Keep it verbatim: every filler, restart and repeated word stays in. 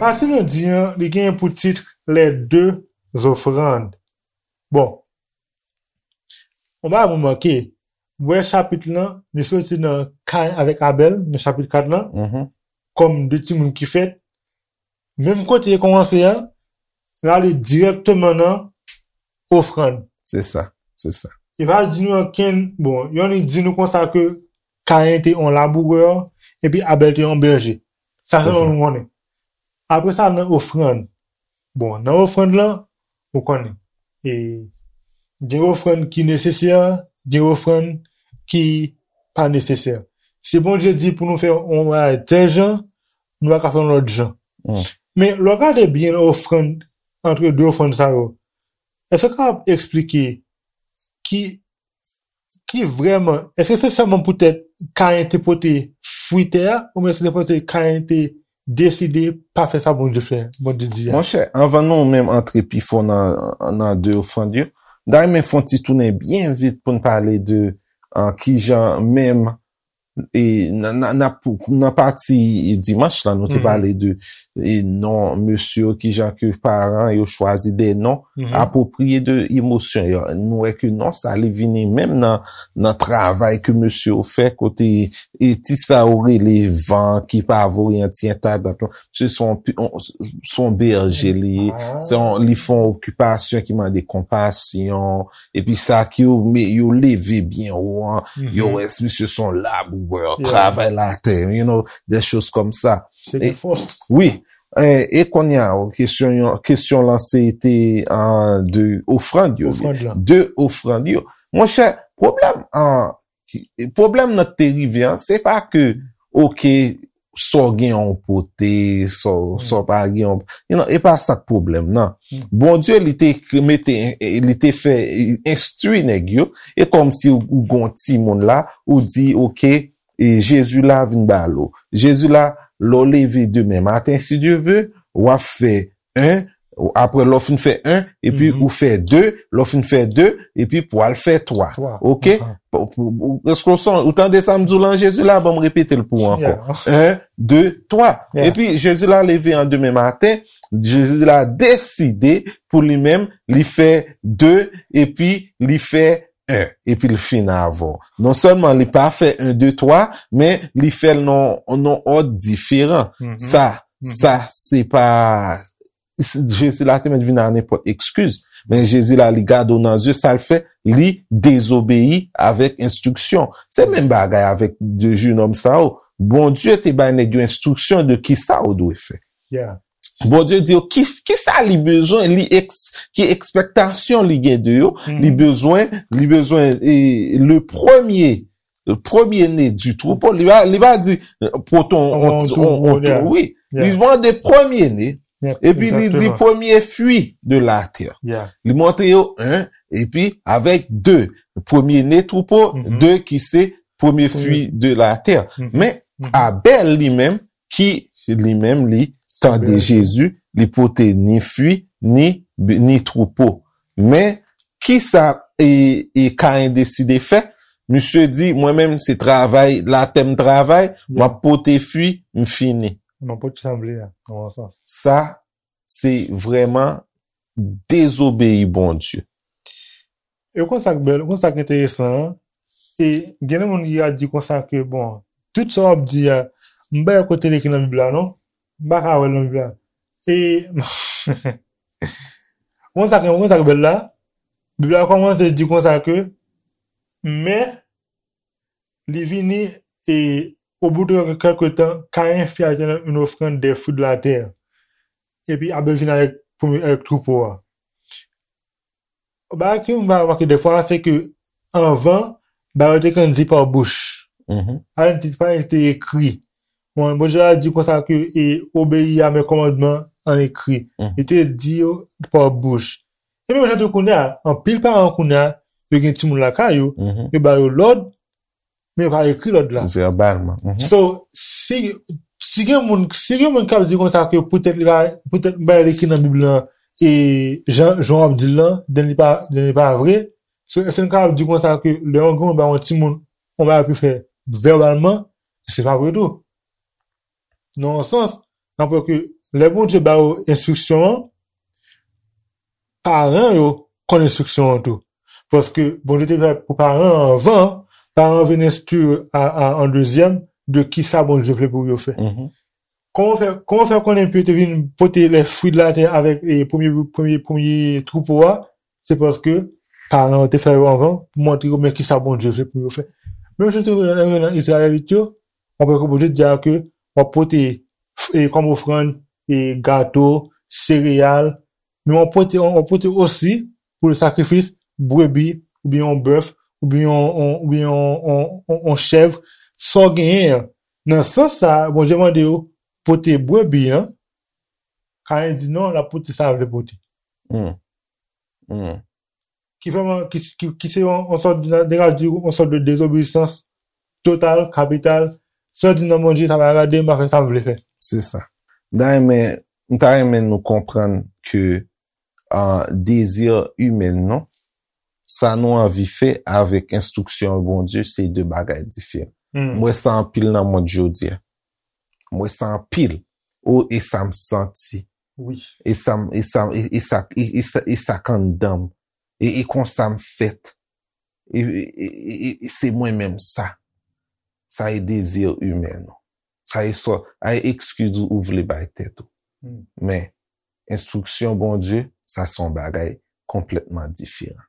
Pase nou di an, li gen pou tit Les deux offrandes. Bon, on va remarquer, wè chapit lan, li soti nan Kayen avèk Abèl, nan chapit kat lan, Mhm. kòm de timoun ki fèt. Menm kote li kòmanse an, l ale dirèkteman nan ofrann. Se sa, se sa. E pa di nou ankenn, bon, yon li di nou konsa ke Kayen te yon labourè, epi Abèl te yon bèje. Sa Se se sa. Nou konnen. Apre sa, nan ofrann. Bon, nan ofrann lan, ou konnen. E gen ofrann ki nesesè, gen ofrann ki pa nesesè. Si Bondye di pou nou fè yon bagay tèl jan, nou pa ka fè yon lòt jan. Mm. Men, lè w gade byen ofrann, antre de ofrann sa yo, èske w kapab eksplike ki, ki vrèman, èske se sèlman poutèt Kayen te pote fwi tè a, oubyen se te poutèt Kayen te deside pa fè sa Bondye fè, Bondye di a? Monchè, anvan nou menm antre pi fon nan, nan de ofrann yo, m ta renmen fè yon ti tounen byen vit pou n pale de uh, kijan menm e nan, nan, nan, nan pati dimanch la, nou te Mhm. pale de e non mesye yo, kijan ke paran yo chwazi de non Mhm. apwopriye de emosyon yo. Nou wè ke non sa li vini menm nan, nan travay ke mesye yo fè kote e ti sa yo rele van ki pa voye an ti entadant. Misye se yon pi- on- se yon bèje li ye. Ah. Se yon, li fè yon okipasyon ki mande konpasyon. Epi sa ki yo, me- yo leve byen wo an. Mhm. Yo wè misye se yon labourè, Yeah. travay latè, you know, des choses comme ça. Se E- de fòs. Wi. E, e kounye a, kesyon, kesyon lan se te an de ofrann yo. Ofrann lan. De ofrann yo. Monchè, pwoblèm an, ki- pwoblèm nan ki te rive an, se pa ke, oke, sa w gen yon pote, sa w- sa w pa gen yon, you know, e pa sa k pwoblèm nan. Mm. Bondye, li te k- mete, li te fè enstwi nèg yo, e kòmsi ou, ou gon timoun la, ou di, oke, e Jezi la vin ba l ou. Jezi la, lè w leve demen maten, si Dye ve, w ap fè en, apre lè w fin fè en, epi Mhm. ou fè de, lè w fin fè de, epi pou al fè twa. Twa. Oke? Aha. Pou- pou- pou- Èske w son- ou tande sa m di w lan Jezi la? Ban m repete l pou ou ankò. Yeah. En, de, twa. Yeah. Epi Jezi la leve an demen maten, Jezi la deside pou li menm, li fè de, epi li fè en, epi l fin avè w. Non sèlman li pa fè en, de, twa, men li fè l nan, nan òd diferan. Mhm. Sa, Mhm. sa, se pa, Jezi la te mèt vin a nenpòt ekskiz, men Jezi la, li gade w nan zye, sa l fè, li dezobeyi avèk enstriksyon. Se menm bagay avèk de jenòm sa yo. Bondye te bay nèg yo enstriksyon de ki sa yo dwe fè. Yeah. Bondye di yo ki, ki sa li bezwen, li eks, ki ekspektasyon li gen de yo, Mhm. li bezwen, li bezwen e, le premye, le premye ne du troupeau, li pa, li pa di pote yon, On ti- troupeau, on- on- yeah. wi, li Yeah. mande premye ne, Yeah, epi li di exactement. premye fwi de la tè. Yeah. Li montre yo en, epi avèk de, premye ne troupeau, Mhm. de ki se premye Premye fwi de la tè. Mhm. Men Mhm. Abèl li menm, ki li menm li tande Bèl. Jezi, li pote ni fwi, ni, ni troupeau. Men, ki sa e, e Kayen deside fè? Misye di, mwen menm se travay, latè m travay, m ap pote fwi, m fini. M ap pote sa m vle a, nan yon sans. Sa, se vrèman dezobeyi Bondye. E konsa k bèl, konsa k enteresan an, e gen de moun ki ka di konsa ke, bon, tout sa w ap di a, m pa wè kote l ekri nan Bib la, non? M pa ka wè l nan Bib la. E, konsa k, konsa k bèl la, Bib la kòmanse di konsa ke, men, li vini, e, au bout de quelque temps, Caïn fit à l'Éternel une offrande des fruits de la terre. Epi Abèl vin avèk, premye, avèk troupeau a. Bagay ke m remake defwa, se ke anvan, bagay yo te konn di pa bouch. Mhm. Pa te, pa te ekri. Bon, Bondye a di konsa ke e obeyi a mes commandements en écrit. Mhm. Li te di yo pa bouch. E menm jan tou kounye a, anpil paran kounye a, yo gen timoun lakay yo, Mhm. yo ba yo lòd, men yo pa ekri lòd la. Vèbalman. Mhm. So, si, si gen moun, si gen moun k ap di konsa ke poutèt li pa, poutèt bagay li ki nan Bib lan, e jan, jan w ap di l lan, then li pa, then li pa vre, So, èske n kapab di konsa ke lè yon granmoun ba yon timoun yon bagay pou fè vèbalman, se pa vre tou? Nan yon sans, n ap wè ke lè Bondye ba yo enstriksyon an, paran yo konn enstriksyon an tou. Paske Bondye te fè pou paran an anvan, paran an vin enstwi a, a, an dezyèm de kisa Bondye vle pou yo fè. Kòman fè, kòman fè konnen Pye te vin pote les fruits de la terre avèk e, premye, premye, premye twoupo a? Se paske paran yo te fè yo anvan pou montre yo men kisa Bondye vle pou yo fè. Menm jan te nan Izrayelit yo, w ap wè ke Bondye di a ke w ap pote e, kòm ofrann e, gato, sereyal, men w ap pote, w ap pote osi pou le sakrifis brebi, oubyen yon bèf, oubyen yon, yon, oubyen yon, yon, yon, yon chèv, sa w genyen an. Nan sans sa a, Bondye mande yo pote brebi an, Kayen di non, l ap pote sa l vle pote. Ki vrèman, ki, ki, ki se yon, yon sòt de, de, yon sòt de dezobeyisans total, kapital. Sa di non, Bondye, sa pa rade, m pa fè sa m vle fè. Se sa. M ta renmen, m ta renmen nou konprann ke uh, dezi imen nou, sa nou anvi fè avèk enstriksyon Bondye, se de bagay diferan. M wè sa anpil nan mond jodi a. M wè sa anpil. O, e sa m santi. E sa m, e sa, e, e sa, e, e sa, e sa k anndan m. E, e konsa m fèt. E, e, e, e, e se mwen menm sa. Sa e dezi imen nou. Sa e sò, a e ekskiz ou, ou vle bay tèt ou. Men, enstriksyon Bondye, sa se yon bagay konplètman diferan.